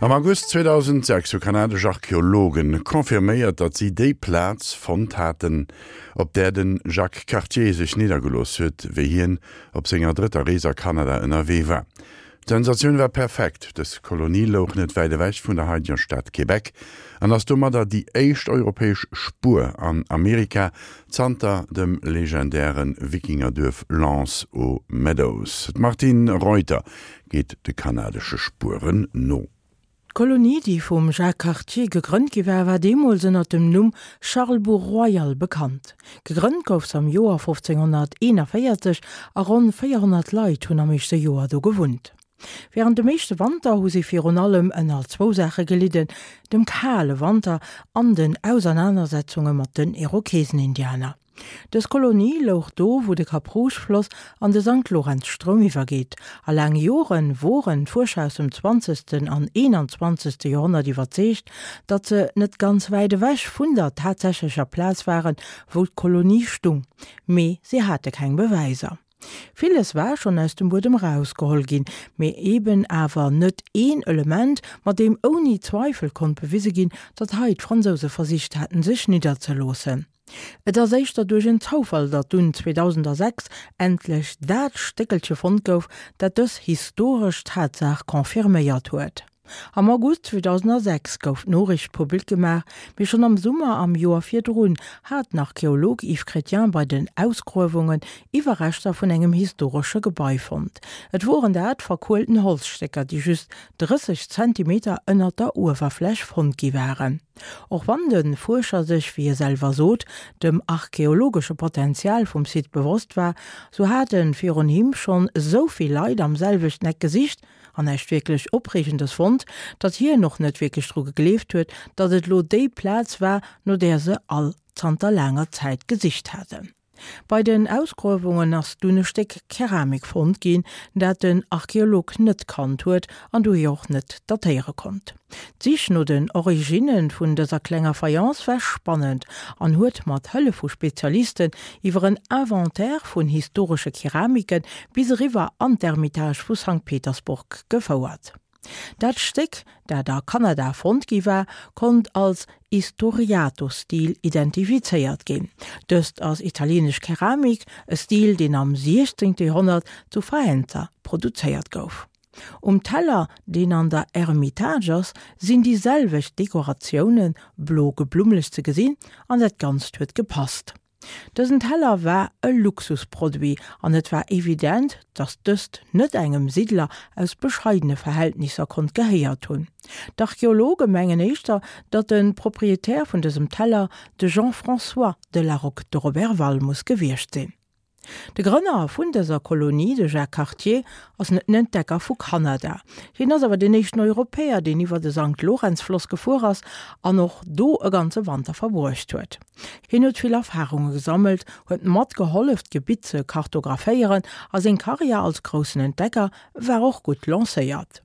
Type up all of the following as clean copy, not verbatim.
Am August 2006 hu kanadesch Archeologen confirméiert, datt si déi Plaz fonnt haten, op där de Jacques Cartier sech niddergelooss huet, wéi hien op senger drëtter Rees a Kanada ënnerwee war. D'Sensatioun war perfekt, dës Kolonie louch net wäit ewech vun der haideger Stad Québec an ass domadder déi éischt europäesch Spuer an Amerika zanter dem legendäre Wikingerduerf L'Anse aux Meadows. D'Martine Reuter geet de kanadesche Spueren no. D'Kolonie, déi vum Jacques Cartier gegrënnt gi war, war deemools ënner dem Numm Charlesbourg-Royal bekannt. Gegrënnt gouf se am Joer 1541 a ronn 400 Leit hunn am éischte Joer do gewunnt. Wärend dem éischte Wanter hu si virun allem ënner zwou Saache gelidden, dem kale Wanter an den Ausernanersetzunge mat den Irokesenindianer. Dës Kolonie louch do, wou de Cap-Rouge-Floss an de Sankt-Lorenz-Stroum iwwergeet, a laang Jore woren d'Fuerscher aus dem zwanzegsten an eenanzwanzegste Joerhonnert iwwerzeegt, datt se net ganz wäit ewech vun der tatsächlecher Plaz waren, wou d'Kolonie stung, mee si hate keng Bewäiser. Villes war schonn aus dem Buedem erausgeholl ginn, mee eben awer net een Element, mat deem ouni Zweifel konnt bewise ginn, datt hei d'Fransouse versicht haten, sech nidderzeloossen. Et ass éischter duerch en Zoufall, datt dunn 2006 endlech dat Stéckelche fonnt gouf, dat dës historesch Tatsaach confirméiert huet. Am August 2006 gouf d'Noriicht public gemaach, mee schonn am Summer am Joer virdrun hat den Archeolog Yves Chrétien bei den Ausgruewungen Iwwerreschter vun engem historesche Gebai fonnt. Et woren dat verkuelten Holzstécker, déi just 30 Zentimeter ënnert der Uewerfläch fonnt gi waren. Och wann de Fuerscher sech, wéi e selwer sot, dem archeologesche Potenzial vum Site bewosst war, sou hate virun him schonn esou vill Leit am selwechten Eck gesicht, an näischt wierklech Opreegendes fonnt, datt hien och net wierklech dru gegleeft huet, datt et lo déi Plaz war, no där se all zanter laanger Zäit gesicht haten. Bei den Ausgruewungen ass dunn e Stéck Keramik fonnt ginn, dat den Archeolog net kannt huet an dohier och net datéiere konnt. D'Sich no den Originne vun dëser klenger Fayence war spannend an huet mat Hëllef vu Spezialisten iwwer en Inventaire vun historesche Keramike bis eriwwer an d'Ermitage vu Sankt Petersburg gefouert. Dat Stéck, dat a Kanada fonnt gi war, konnt als Istoriato-Stil identifizéiert ginn. Dëst ass italienesch Keramik, e Stil, deen am 16. Joerhonnert zu Faenza produzéiert gouf. Um Teller, deen an der Ermitage ass, sinn déi selwecht Dekoratiounen, blo geblummlech, ze gesinn an dat Ganzt huet gepasst. Dësen Teller war e Luxusproduit an et war evident, datt dëst net engem Siddler aus bescheidene Verhältnisser konnt gehéiert hunn. D'Archeologe mengen éischter, datt de Proprietär vun dësem Teller de Jean-François de La Rocque de Roberval muss gewiescht sinn. De Grënner vun dëser Kolonie, de Jacques Cartier, ass net den Entdecker vu Kanada. Hien ass awer deen éischten Europäer, deen iwwer de Sankt-Lorenz-Floss gefuer ass an och do e ganze Wanter verbruecht huet. Hien huet vill Erfarunge gesammelt, huet matgehollef, d'Gebitt ze kartographéieren a seng Karriär als groussen Entdecker war och gutt lancéiert.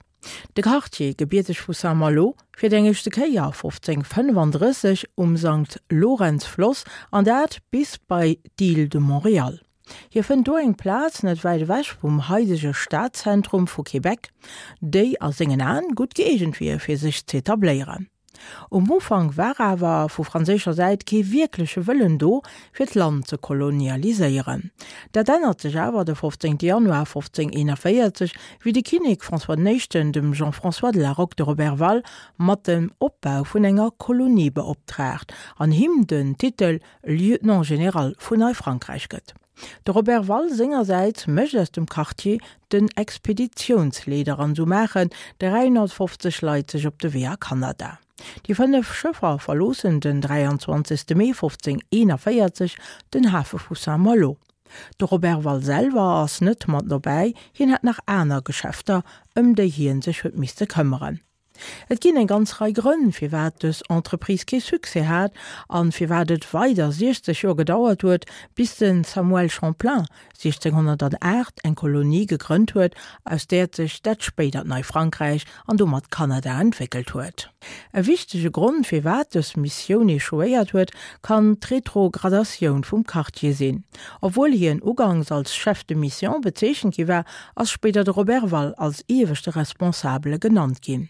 De Cartier, gebierteg vu Saint-Malo, fiert eng éischte Kéier 1535 um Sankt-Lorenz-Floss, an dat bis bei d'Île de Montréal. Hie fënnt do eng Plaz net wäit ewech vum haidege Stadzentrum vu Québec, déi a sengen Aen gutt gëeegent wier fir sech z'etabléieren. Um Ufank war awer vu franséischer Säit kee wierkleche Wëllen do, fir d'Land ze kolonialiséieren. Dat ännert sech awer de 15 Januar 1541, wéi de Kinnek François den Éischten dem Jean-François de La Rocque de Roberval mat dem Opbau vun enger Kolonie beoptraagt an him den Titel Lieutenant général vun Neifrankräich gëtt. De Roberval sengersäits mécht aus dem Cartier den Expeditiounsleeder an sou maachen 350 Leit sech op de Wee a Kanada. Déi 5 Schëffer verloossen den 23 Mee 1541 den Hafe vu Saint-Malo. De Roberval selwer ass net mat dobäi, hien hat nach aner Geschäfter, ëm déi hien sech huet misste këmmeren. Et ginn eng ganz Rei Grënn, firwat dës Entreprise kee Succès hat an firwat et weider 60 Joer gedauert huet, bis de Samuel Champlain 1608 eng Kolonie gegrënnt huet, aus där sech dat spéidert Neifrankräich an domat Kanada entwéckelt huet. E wichtege Grond, firwat dës Missioun echouéiert huet, kann d'Retrogradatioun vum Cartier sinn. Obwuel hien ugangs als Chef de mission bezeechent gi war, ass spéider de Roberval als ieweschte Responsabele genannt ginn.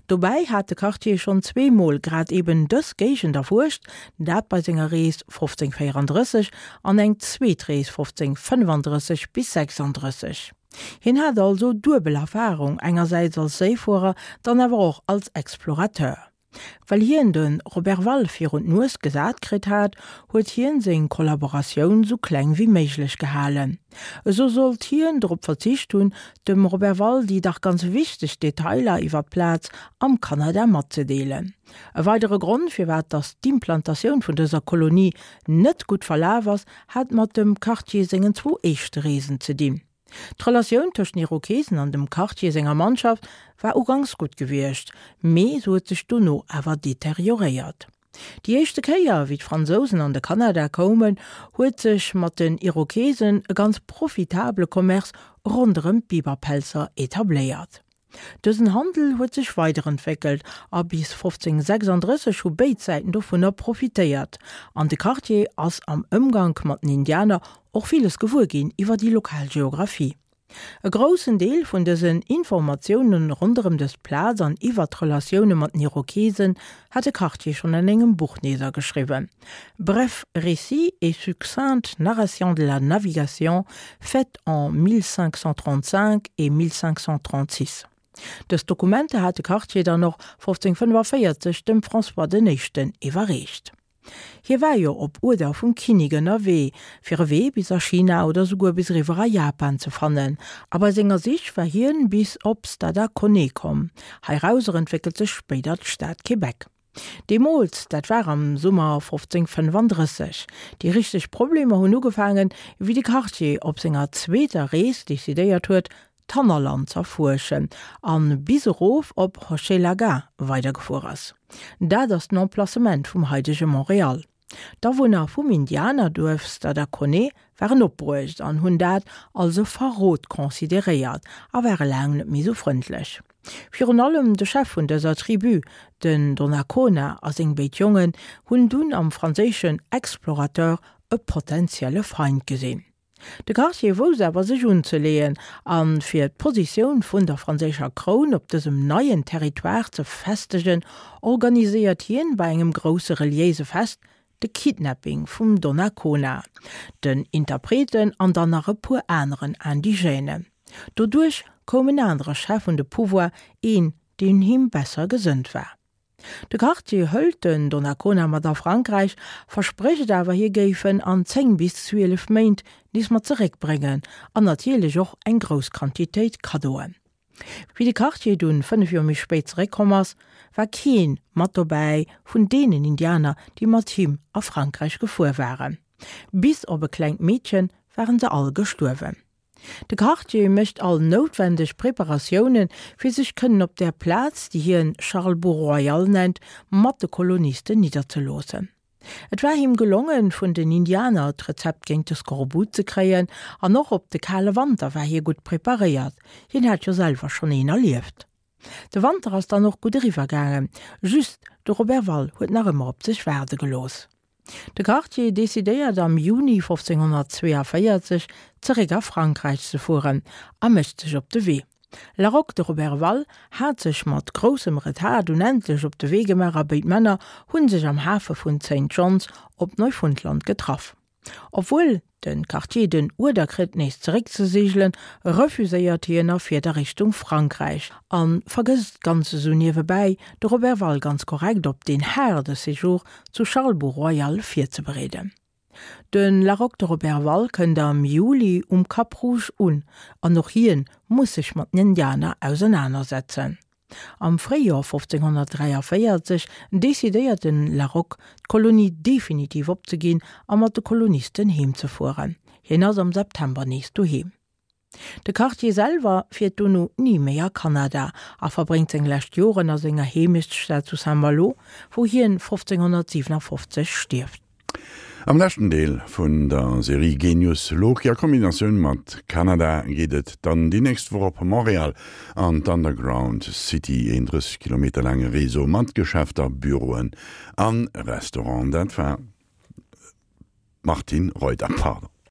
Dobäi hat de Cartier schonn zweemol grad eben dës Géigend erfuerscht, dat bei senger Rees 1534 an eng zweet Rees 1535 bis 36. Hien hat also duebel Erfarung, engersäits als Séifuerer, dann awer och als Explorateur. Well hien de Roberval virun d'Nues gesat kritt hat, huet hien seng Kollaboratioun sou kleng wéi méiglech gehalen. Esou sollt hien drop verzicht hunn, dem Roberval déi dach ganz wichteg Detailer iwwer d'Plaz am Kanada matzedeelen. E weidere Grond, firwat datt d'Implantatioun vun dëser Kolonie net gutt verlaf ass, hat mat dem Cartier sengen zwou éischte Reesen ze dinn. D'Relatioun tëscht den Irokesen an dem Cartier senger Mannschaft war uganks gutt gewiescht, mee se huet sech dono awer deterioréiert. Déi éischte Kéier, wéi d'Fransousen an de Kanada koumen, huet sech mat den Irokesen e ganz profitabele Commerce ronderëm d'Biberpelzer etabléiert. Dësen Handel huet sech weiderentwéckelt a bis 1536 hu béid Säiten dovunner profitéiert. An de Cartier ass am Ëmgank mat den Indianer och villes gewuer ginn iwwer déi lokal Geographie. E groussen Deel vun dësen Informatioune ronderëm dës Plaz an iwwer d'Relatioune mat den Irokesen hat de Cartier schonn an engem Buch niddergeschriwwen, Bref récit et succincte narration de la navigation faite en 1535 et 1536. Dës Dokumenter hat de Cartier dann och 1545 dem François den Éischten iwwerreecht. Hie war jo op Uerder vum Kinnik ënnerwee, fir e Wee bis a China oder souguer bis eriwwer a Japan ze fannen, a bei senger Sich war hien bis op Stadaconé komm. Heirauser entwéckelt sech spéider d'Stad Québec. Deemools, dat war am Summer 1535. Déi richteg Problemer hunn ugefaangen, wéi de Cartier op senger zweeter Rees decidéiert huet, d'Hannerland z'erfuerschen a bis erof op Hochelaga weidergefuer ass. Dat ass den Emplacement vum haidege Montréal. D'Awunner vum Indianerduerf Stadaconé waren opbruecht an hunn dat als e Verrot consideréiert a ware laang net méi sou frëndlech. Virun allem de Chef vun dëser Tribu, den Donnacona a seng béid Jongen, hunn dunn am franséischen Explorateur e potentielle Feind gesinn. De Cartier wousst awer sech unzeleeën a fir d'Positioun vun der franséischer Kroun op dësem neien Territoire ze festegen, organiséiert hien bei engem grousse reliéise Fest de Kidnapping vum Donnacona, den Interpreten an dann nach e puer aneren Indigènen. Doduerch koum en anere Chef un de Pouvoir, een deen him besser gesënnt war. De Cartier hëlt den Donnacona mat a Frankräich, versprécht awer hie géif en an 10 bis 12 Méint nees mat zeréckbréngen an natierlech och eng grouss Quantitéit Kaddoen. Wéi de Cartier dunn 5 Joer méi spéit zeréckkomm ass, war keen mat dobäi vun deenen Indianer, déi mat him a Frankräich gefuer waren. Bis op e klengt Meedchen waren se all gestuerwen. De Cartier mécht all noutwendeg Preparatiounen, fir sech kënnen op där Plaz, déi hien Charlesbourg-Royal nennt, mat de Kolonisten nidderzeloossen. Et war him gelongen, vun den Indianer d'Rezept géint de Skorbut ze kréien, an och op de kale Wanter war hie gutt preparéiert, hien hat jo selwer schonn een erlieft. De Wanter ass dann och gutt eriwwer gaangen, just de Roberval huet nach ëmmer op sech waarde gelooss. De Cartier decidéiert am Juni 1542 zeréck a Frankräich ze fueren a mécht sech op de Wee. La Roque de Roberval hat sech mat groussem Retard dunn endlech op de Wee gemaach a béid Männer hu sech am Hafe vun Saint John's op Neufundland getraff. Obwuel de Cartier den Uerder kritt nees zeréck ze seegelen, refuséiert hien a fiert a Richtung Frankräich a vergësst ganz esou niewebäi, de Roberval ganz korrekt op deen haarde Séjour zu Charlesbourg-Royal virzebereeden. De La Roque de Roberval kënnt am Juli um Cap Rouge un an och hien muss sech mat den Indianer ausernanersetzen. Am Fréijoer 1543 decidéiert den La Rocque, d'Kolonie definitiv opzeginn a mat de Kolonisten heem ze fueren. Hien ass am September nees doheem. De Cartier selwer fiert dono ni méi a Kanada a verbréngt seng lescht Joren a senger Heemechtsstad zu Saint-Malo, wou hien 1557 stierft. Am leschten Deel vun der Serie Genius Loki a Kombinatioun mat Kanada geet et dann déi nächst Woch op Montréal an d'Underground City, een 30 Kilometer laange Réseau mat Geschäfter, Büroen an Restauranten. Dat war d'Martine Reuter, pardon.